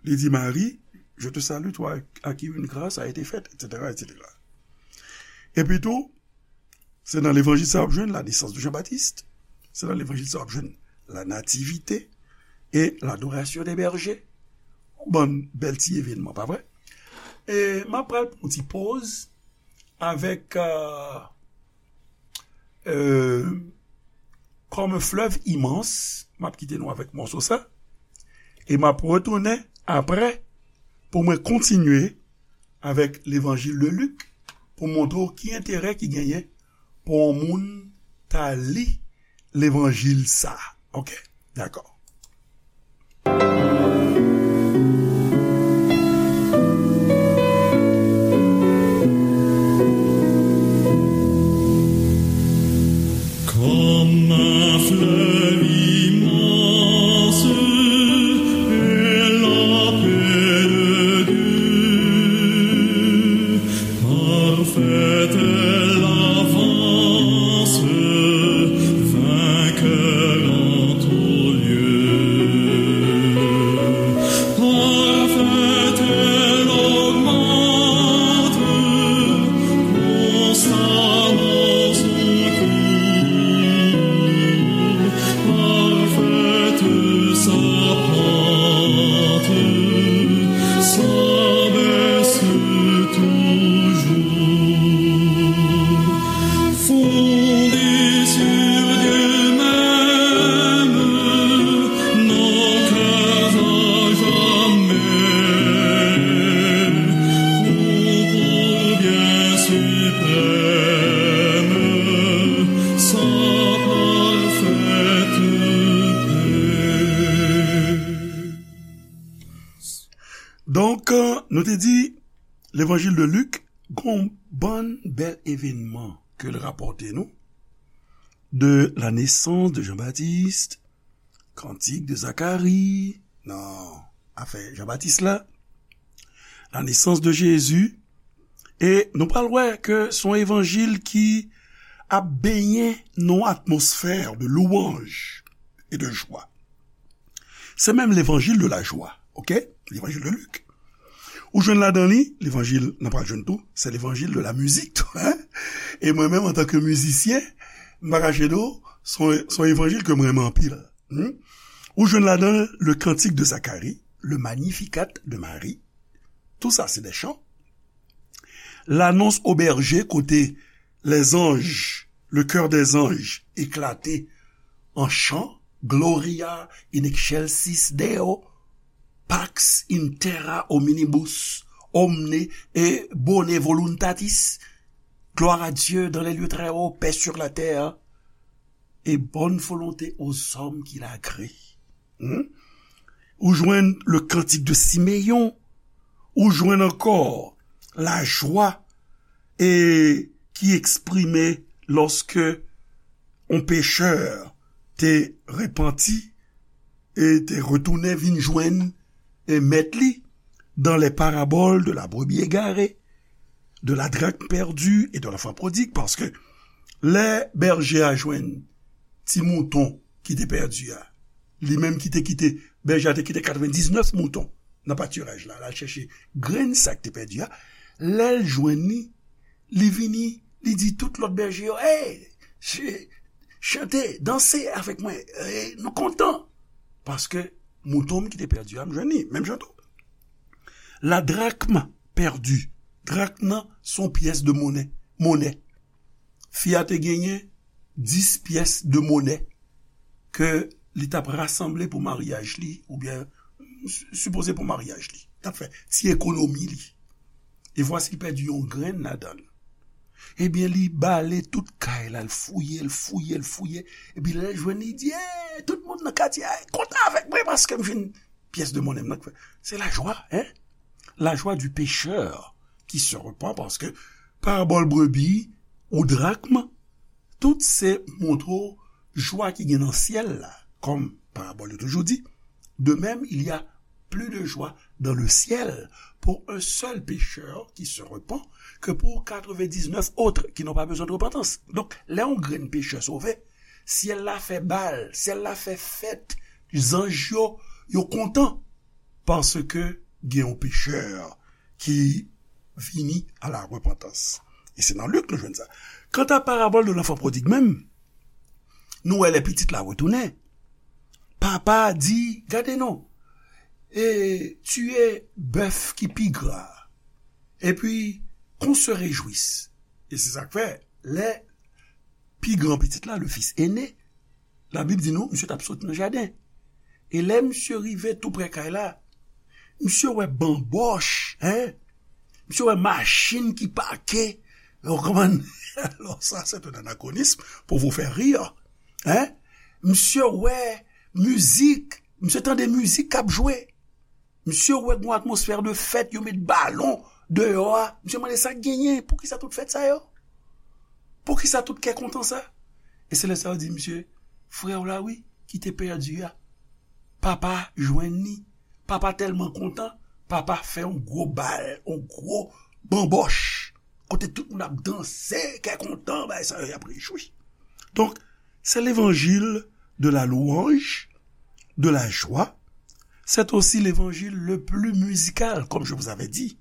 li di Mari, je te salue, toi à qui une grâce a été faite, et cetera, et cetera. Epi tou, se nan levanjil sa w ap jwenn la naissance de Jean-Baptiste, se nan levanjil sa w ap jwenn la nativité et l'adoration des bergers. Yon bann bèl ti evènman, pa vre? E m ap pral pran yon ti poz avèk, euh, euh, Comme un fleuve immense, m ap kite nou avèk mòso sa, e m ap retounen apre pou mwen kontinye avèk levanjil de Lik pou montre w ki enterè ki genyen pou yon moun ta li levanjil sa. Oke? Dakò. Comme un fleuve immense est la paix de Dieu, parfaite est l'avance, vainqueur en tout lieu. Parfaite elle augmente, constamment son cours. Parfaite sa pente, s'abaisse toujours. Fondée sur Dieu même, n'en crève jamais, concours bien suprême, sa parfaite paix. Donk, nou te di, levanjil de Lik, gon bann bèl evènman ke l rapòte nou, de la naissance de Jean-Baptiste, Kantik de Zakari, nan afè Jan Batis la, la nesans de Jezi, e nou pral wè ke se yon evanjil ki ap benyen nan yon atmosfè de louanj e de jwa. Se menm levanjil de la jwa, oke? Levanjil de Lik. Ou jwenn ladan li, levanjil, n a pral jwenn tou, se levanjil de la mizik tou, hein? E mwen menm, antanke mizisyen, m pa kache di w, se yon, se yon evanjil ke m renmen anpil. Hmm? Ou jwenn ladan le Cantique de Zacharie, le Magnificat de Marie. Tout ça, c'est des chants. L'annonce aux bergers, kote les anges, le chœur des anges éclatait en chant, Gloria in excelsis Deo, Pax in terra hominibus, omne et bonae voluntatis, gloire à Dieu dans les lieux très hauts, paix sur la terre, et bonne volonté aux hommes qu'il a agréés. Hmm? Ou jwenn le Cantique de Siméon, ou jwenn ankò lajwa e ki eksprime lòske yon pechè te repanti e te retounen vin jwenn e mèt li dans les paraboles de la brebis égarée, de la drachme perdue et de l'enfant prodigue, paske lè bèje a jwenn ti mouton ki te pèdi a, li menm ki te kite, bèje a te kite katrevendiznèf mouton nan patiraj la, l al chèche grenn sa k te pèdi a, lè l jwenn li, li vini, li di tout lòt bèje yo, hey, ch-, chante, danse avèk mwen, hey, nou kontan, paske mouton m ki te pèdi a, m jwenn li, menm jan tou. La drachme perdue. Drakm nan se yon pyès de monè. Monè. Fi a te genyen dis pyès de monè ke li t ap rasanble pou maryaj li, oubyen s-, sipoze pou maryaj li. T ap fè ti ekonomi li. E vwasi l pèdi yon grenn ladan l. Ebyen, li bale tout kay la, l fouye, l fouye, l fouye. Epi lè l jwenn li, li di, hey, tout moun nan katye a kontan avèk mwen paske m jwenn pyès de monè m nan. Se lajwa, hein? La joie du pécheur qui se repent, paske parabòl brebi ou drakm, tout se montre w jwa ki gen nan syèl la, kòm parabòl yo toujou di, de même, il y a plus de joie dans le ciel pour un seul pécheur qui se repent que pour quatre-vingt-dix-neuf autres qui n'ont pas besoin de repentance. Donk, lè yon grenn pechè sove, syèl la fè bal, syèl la fè fèt, zanj yo, yo kontan, paske gen yon pechè ki vini à la repentance. E se nan Lik nou jwenn sa. Kanta parabòl de l'enfant prodigue menm, nou wè lè pitit la retounen, papa a di, gade non, e tiye bèf ki pi gra, epi qu'on se réjouisse. E se sa k fè, lè pi gran pitit la, le fils aîné, Labib di nou, misye t ap sot nan jaden. E lè misye rive tou prè kay la, misye wè banbòch, hein? Misye wè machin ki pake. Ou konprann? Alors, ça, c'est un anachronisme pour vous faire rire. Hein? Misye wè mizik. Misye tande mizik k ap jwe. Misye wè gen yon atmosfè de fèt, yo met balon deyò a. Misye mande sa k genyen, poukisa tout fèt sa yo? Poukisa tout kè kontan sa? E se lè sa yo di misye, frè w la wi, ki te pèdi a. Papa jwenn li. Papa tèlman kontan, papa fè yon gwo bal, yon gwo banbòch. Kote tout moun ap danse, kè kontan, bagay sa yo, y ap rejwi. Donk, c'est l'évangile de la louange, de la joie. C'est aussi l'évangile le plus musical, comme je vous avais dit.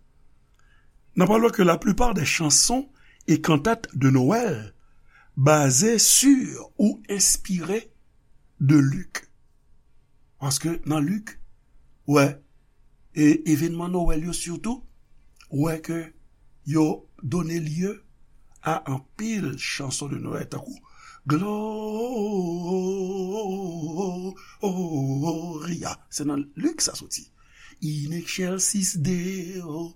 N'en parlons que la plupart des chansons et cantates de Noël basées sur ou inspirées de Luc. Paske nan Lik, ou wè, e evènman Nwèl yo sitou, ou wè ke yo done lye a anpil chanson de Nwèl, tankou Gloria. Se nan Lik sa soti. In excelsis Deo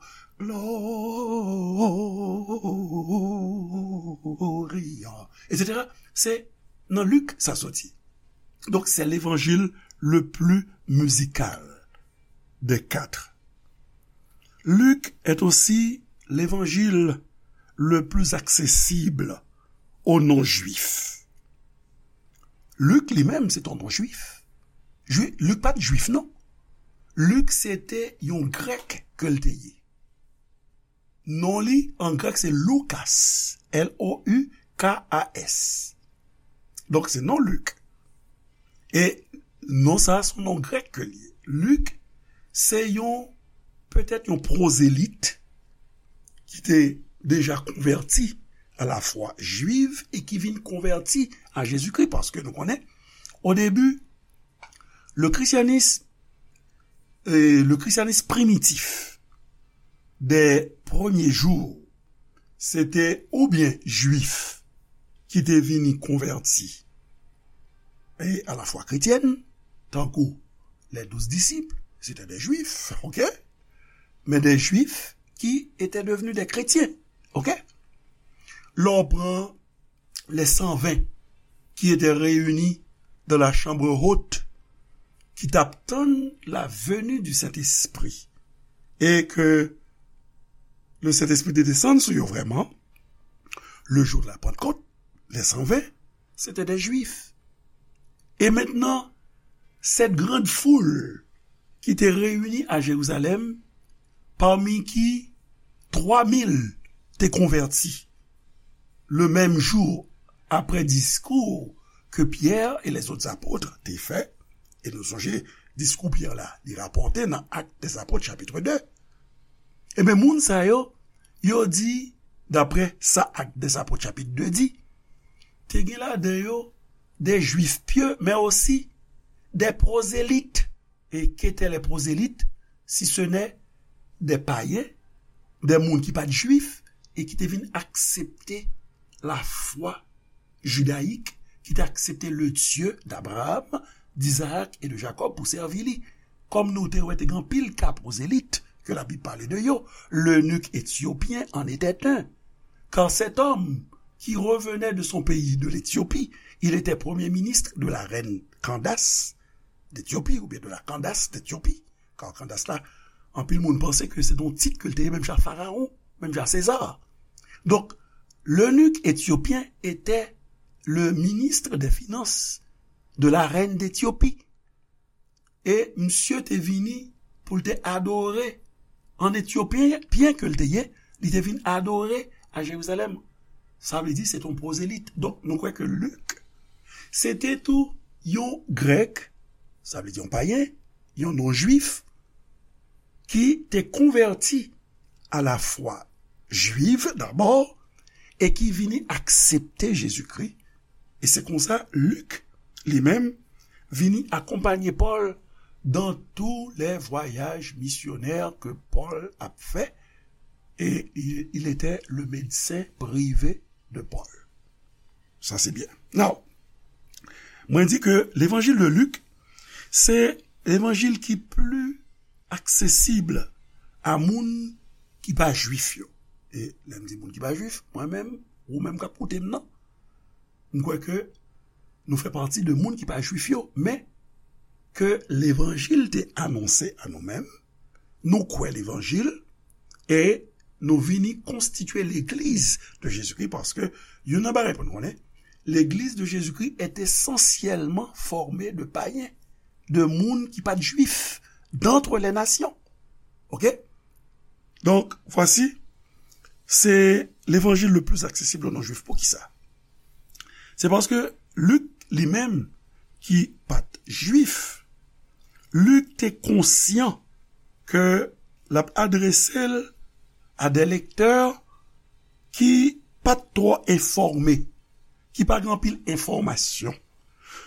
Gloria, et cetera. Se nan Lik sa soti. Donc, c'est l'évangile le plus musical des quatre. Luc est aussi l'évangile le plus accessible aux non-juifs. Lik li menm, se yon non-jwif. Jwi- Lik pa t jwif, non. Lik se te yon grèk ke l te ye. Non li an grèk se Loukas, L O U K A S. Donk se non Lik. E non sa a se yon non grèk ke l ye. Lik se yon, petèt yon pwozelit ki te deja konvèti a la fwa jwiv e ki vin konvèti a Jezikri, paske nou konnen, o debi, le christianisme, euh, le christianisme primitif des premiers jours, se te oubyen jwif ki te vini konvèti e a la fwa kretyèn, tankou les douze disciples, se te de jwif, ok? Men de jwif ki ete devni de kretyen, ok? Lè w pran les cent vingt qui étaient réunis dans la chambre haute, ki t ap tann la venue du Saint-Esprit, e ke le Saint-Esprit te desann sou yo vrèman, le jour de la Pentecôte, les cent vingt, c'était des Juifs. Et maintenant, cette grande foule qui était réunie à Jérusalem, parmi qui trois mille te konvèti le même jour après discours que Pierre et les autres apôtres te fè, e nou sonje diskou Pyè la, li rapòte nan Actes des Apôtres chapit de. Ebyen, moun sa yo, yo di, daprè sa Actes des Apôtres chapit de di, te gen ladan yo des Juifs pieux, mais aussi des prosélytes. Et qu'étaient les prosélytes, si ce n'est des païens, des moun ki pa t jwif, e ki te vin aksepte lafwa jidayik, ki te aksepte le Dieu d'Abraham, d'Isaac et de Jacob pou sèvi li. Kòm nou te wè, te gen anpil ka prosélytes que la Bible parle de yo, l'eunuque éthiopien en était un. Car cet homme qui revenait de son pays, de l'Éthiopie, il était premier ministre de la reine Candace d'Éthiopie, oubyen de la Candace d'Éthiopie. Car Candace la, anpil moun panse ke se yon tit ke l te ye menm jan Pharaon, menm jan César. Donc, l'eunuque éthiopien était le ministre des finances de la reine d'Éthiopie. E misye te vini pou l te adore an Etyopyen, pyen ke l te ye, li te vin adore a Jerizalèm. Sa vle di se te yon pwozelit. Donk, nou kwè ke Lik, se te tou yon Grèk, sa vle di yon payen, yon non-Jwif, ki te konvèti a lafwa jwiv dabò e ki vini aksepte Jezikri. E se konsa Lik, li menm, vini akonpanye Pòl dans tous les voyages missionnaires que Paul a fait, et il, il était le médecin privé de Paul. Sa se byen. Now, mwen di ke levanjil de Lik, se levanjil ki pli aksesib a moun ki pa jwif yo. E lè m di moun ki pa jwif, mwen menm, ou menm k ap koute m nan, m kwè ke nou fè pati de moun ki pa jwif yo, men ke levanjil te anonse a nou menm, nou kwè levanjil, e nou vini konstitye legliz de Jezikri, paske youn nan bagay pou nou konnen, legliz de Jezikri est essentiellement formée de païens, de moun ki pa t jwif, d'entre les nations. Ok? Donk, vwasi, se levanjil le plus accessible aux non-juifs. Poukisa? Se paske Lik, li menm, ki pa t jwif, Lik te konsyan ke l ap adrese l a de lektè ki pa t twò enfòme, ki pa gen anpil enfòmasyon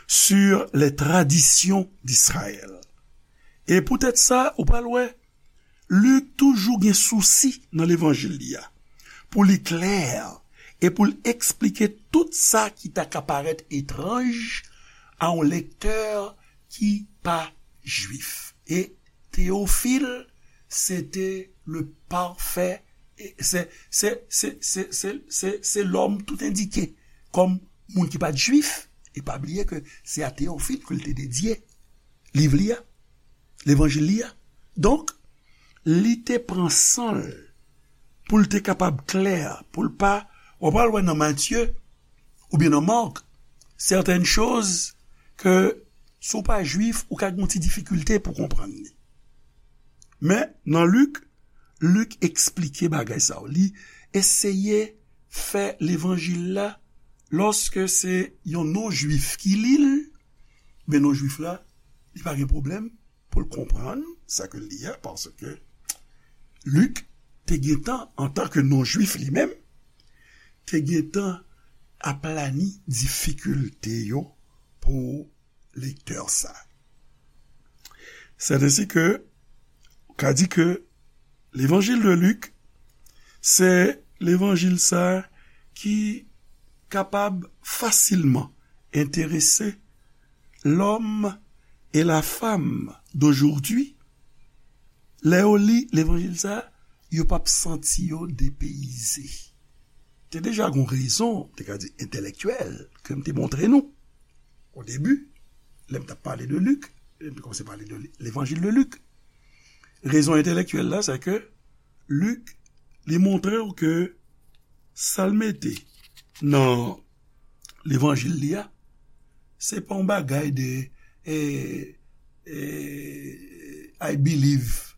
sur les traditions d'Israël. E poutèt sa, ou pral wè, Lik toujou gen sousi nan levanjil li a, pou li klè e pou l eksplike tout sa ki ta ka parèt etranj a yon lektè ki pa jwif. E Teyofil, se te le parfait, e se, se, se, se, se, se, se lòm tout endike kòm moun ki pa t jwif. E pa bliye ke se a Teyofil ke l te dedye liv li a, levanjil li a. Donk, li te pran san l pou l te kapab klè, pou l pa, w ap al wè nan Matye oubyen nan Mak, certaines choses que Si w pa jwif, ou ka gen yon ti difikilte pou konprann li. Men, nan Lik, Lik eksplike bagay sa yo. Li eseye fè levanjil la, lòske se yon non-jwif ki li l, men non-jwif la, li pa gen pwoblèm pou l konprann sa ke l li a, paske Lik te gentan, antanke non-jwif li menm, te gentan aplani difikilte yo pou lektè sa. Sèt ensi ke, ka di ke levanjil de Lik, se levanjil sa ki kapab fasilman enterese l'homme et la femme d'aujourd'hui. Lè yo li levanjil sa, yo p ap santi yo depeyize. Te deja gon rezon, te ka di entèlektyèl, ke m te montre nou o debi, lè m t ap pale de Lik, lè m te kòmanse pale de levanjil de Lik. Rezon entèlektyèl la, se ke Lik, li montre w ke sa l mete nan levanjil li a, se pa yon bagay de, eh, eh, I believe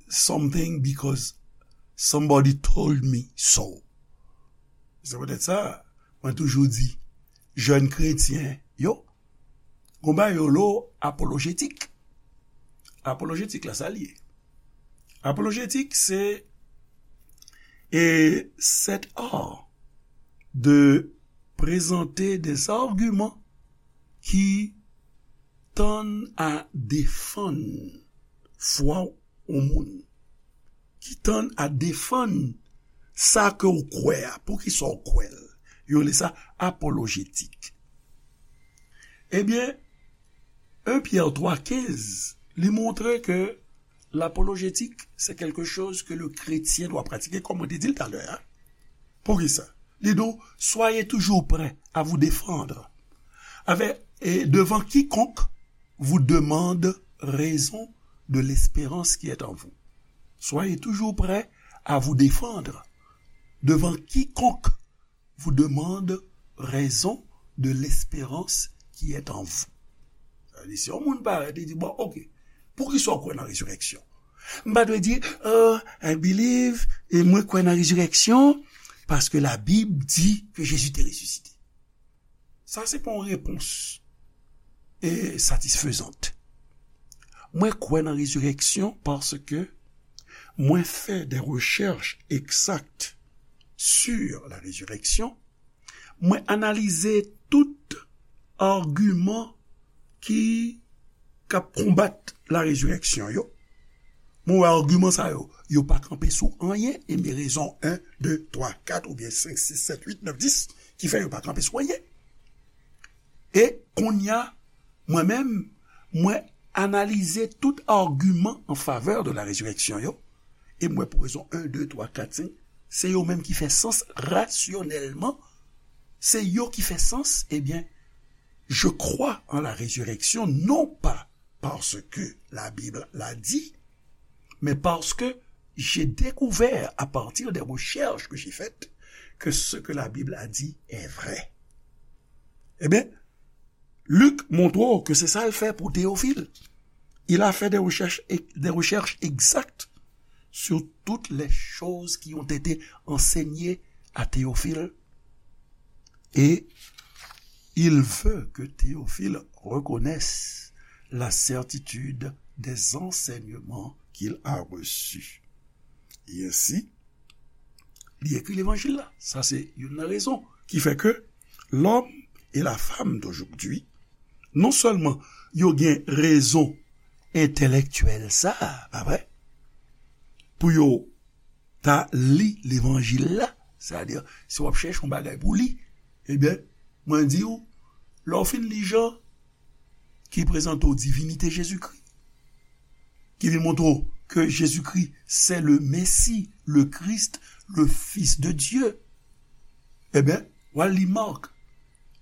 something because somebody told me so. Se poutèt sa, mwen toujou di, jèn kretyen yo, gon bagay yo lo apolojetik. Apolojetik la, sa l ye? Apolojetik, se, e, cet art de présenter des arguments qui tendent à défendre fwa yon moun, ki tendent à défendre sa ke w kwè a, poukisa w kwè l. Yo rele sa apolojetik. Ebyen, un Pierre trois quinze, li montre ke l'apologetique, c'est quelque chose que le chrétien doit pratiquer, kòm mwen te di l talè a. Poukisa? Li di w, soyez toujours prêts à vous défendre avec, et devant quiconque vous demande raison de l'espérance qui est en vous. Soyez toujours prêts à vous défendre devant quiconque vous demande raison de l'espérance qui est en vous. Sa vle di, si yon moun parèt, li di, bon, ok, poukisa w kwè nan rezirèksyon? M pa dwe di, oh, I believe, e mwen kwè nan rezirèksyon, paske Labib di ke Jezi te resisite. Sa se pa yon repons, e, satisfezant. Mwen kwè nan rezirèksyon paske mwen fè des recherches exactes sur la résurrection. Mwen analize tout agiman ki, k ap konbat la rezirèksyon yo. Mwen wè agiman sa yo, yo pa kanpe sou anyen, e men rezon en, de, twa, kat, oubyen senk, sis, sèt, uit, nèf, dis, ki fè yo pa kanpe sou anyen. E kounye a, mwen menm, mwen analize tout agiman an favè de la rezirèksyon yo, e mwen pou rezon en, de, twa, kat, senk, se yo menm ki fè sans rasyonèlman, se yo ki fè sans, ebyen, je crois en la résurrection, non pas parce que la Bible l'a dit, mais parce que j'ai découvert à partir des recherches que j'ai faites que ce que la Bible a dit est vrai. Ebyen, Lik montre w ke se sa l fè pou Teyofil. Il a fait des recherches, des recherches exactes sur toutes les choses qui ont été enseignées à Théophile. Et il veut que Théophile reconnaisse la certitude des enseignements qu'il a reçus. E ensi, li ekri levanjil la. Sa se youn nan rezon ki fè ke l'homme et la femme d'aujourd'hui, non sèlman yo gen rezon entèlektyèl sa, pa vre, pou yo ta li levanjil la, sètadi, si w ap chèche yon bagay pou li, ebyen, mwen di w, lè w fin li Jan, ki prezante w divinite Jezikri, ki vin montre w ke Jezikri se le Messie, le Christ, le Fils de Dieu, ebyen, w al li Mak,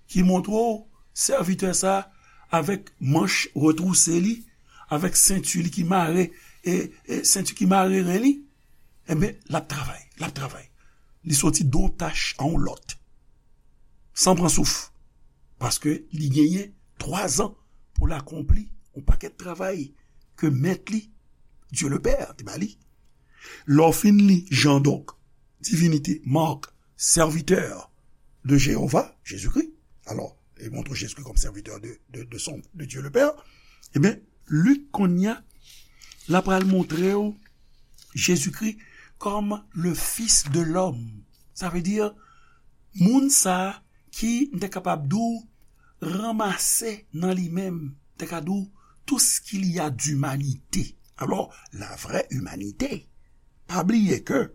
ki montre w sèvitè sa avèk manch retwouse li, avèk senti li ki mare, e, e senti ki mare ren li, ebyen, l ap travay, l ap travay. Li soti de yon tach a yon lòt, san pran souf, paske li genyen twa zan pou l akonpli yon pakèt travay ke mèt li, Dye Lepè, te ba li. Lè w fin li Jan, donk, divinite, mark, serviteur de Jéhovah, Jésus-Christ. Alò, li montre Jésus-Christ comme serviteur de, de, de son, de Dieu le Père. Ebyen, Lik, kounye a, l ap pral montre w Jezikri comme le Fils de l'homme. Sa vle di, moun sa a ki, m te kapab di w, ranmase nan li menm, m te ka di w, tout ce qu'il y a d'humanité. Alors, la vraie humanité. Pa bliye ke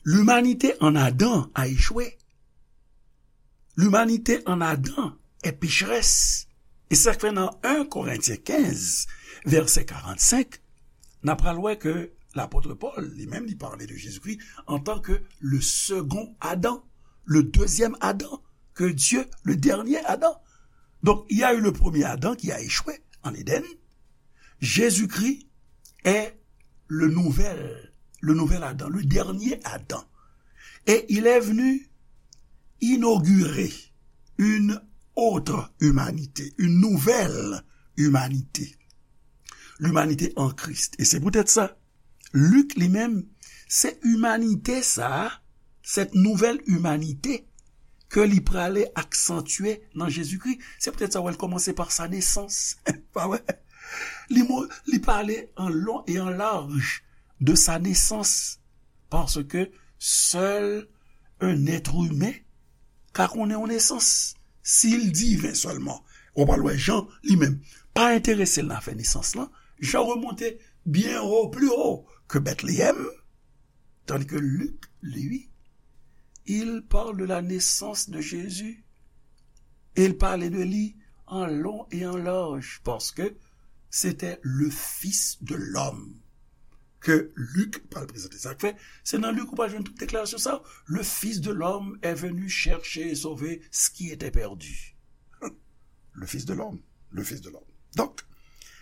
l'humanité en Adam a échoué. L'humanité en Adam est pécheresse. E sa k fè nan en Korentyen kenz, vèsè karannsenk, n a pral wè ke lapot Pòl, li menm, li pale de Jezikri antan ke le second Adam, le deuxième Adam, que Dieu, le dernier Adam. Donc, il y a eu le premier Adam qui a échoué en Éden. Jésus-Christ est le nouvel, le nouvel Adam, le dernier Adam. Et il est venu inaugurer une autre humanité, une nouvelle humanité. L'humanité en Christ. Et c'est peut-être ça Lik, li menm, se imanite sa a, cette nouvelle humanité, ke li prale aksantye nan Jezikri. Se poutèt sa w wè l kòmanse pa sa nesans. Pa vre? Li mo-, li pale an lon e an laj de sa nesans, paske sèl un être humain ka konnen yon nesans, si l diven sèlman. Ou pral wè Jan, li menm, pa enterese l nan afè nesans lan. Jan remonte byen wo, pli wo ke Bètleyèm, tandis que Luc, lui, il parle de la naissance de Jésus. Et il parle de lui en long et en large, parce que c'était le Fils de l'homme. Ke Lik pral prezante. Sa k fè, se nan Lik ou pral jwenn tout deklarasyon sa. Le Fils de l'homme est venu chercher et sauver ce qui était perdu. Le Fils de l'homme, le Fils de l'homme. Donk,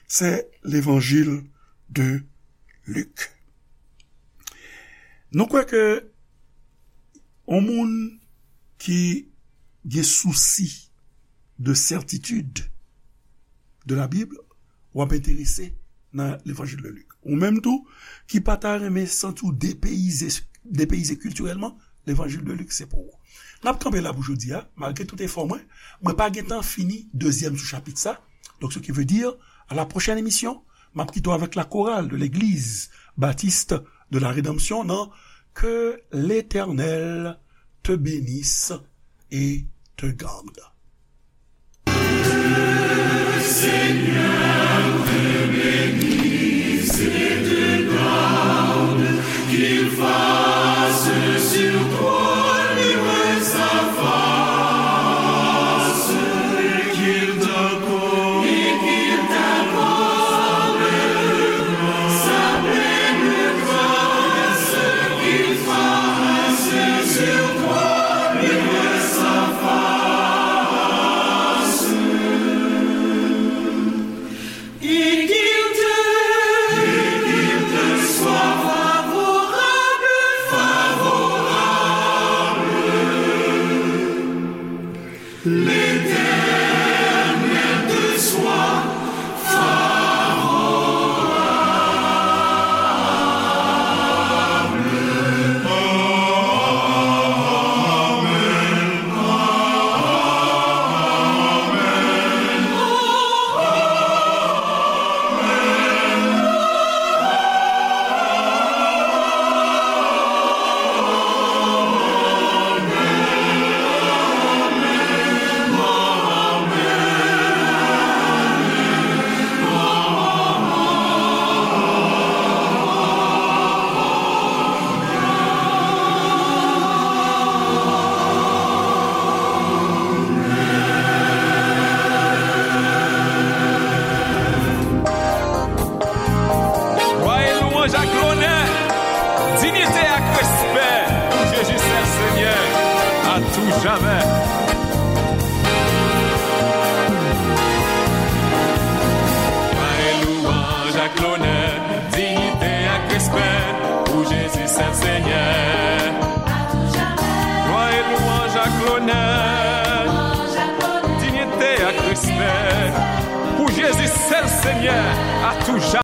se levanjil de Lik. Nou kwè ke yon moun ki gen sousi de sètitid de la Bib, w ap enterese nan levanjil de Lik. Ou menm tou, ki pa ta renmen santi w depeyize, depeyize kiltirèlman, levanjil de Lik se pou ou. N ap kanpe la pou jodi a, malgre tout efò mwen, mwen pa gen tan fini dezyèm sou chapit sa. Donc, ce qui veut dire, à la prochaine émission, m ap kite w avèk la chorale de l'église baptiste de la Rédemption, nan Que l'Éternel te bénisse et te garde. Seigneur te bénisse et te garde, qu'il fasse sur toi luire sa face, et qu'il t'accorde, et qu'il t'accorde sa pleine grâce, qu'il fasse sur toi luire sa face. Et qu'il te, et qu'il te soit favorable, favorable. L'Éternel te soit favorable. Amen. Glwa e lwanj ak lonè, diyite ak respè pou Jezi sèl Senyè, a tou jamè. Glwa e lwanj ak lonè, diyite ak respè pou Jezi sèl Senyè. Glwa e lwanj ak lonè, diyite ak respè Seigneur à tout jamais.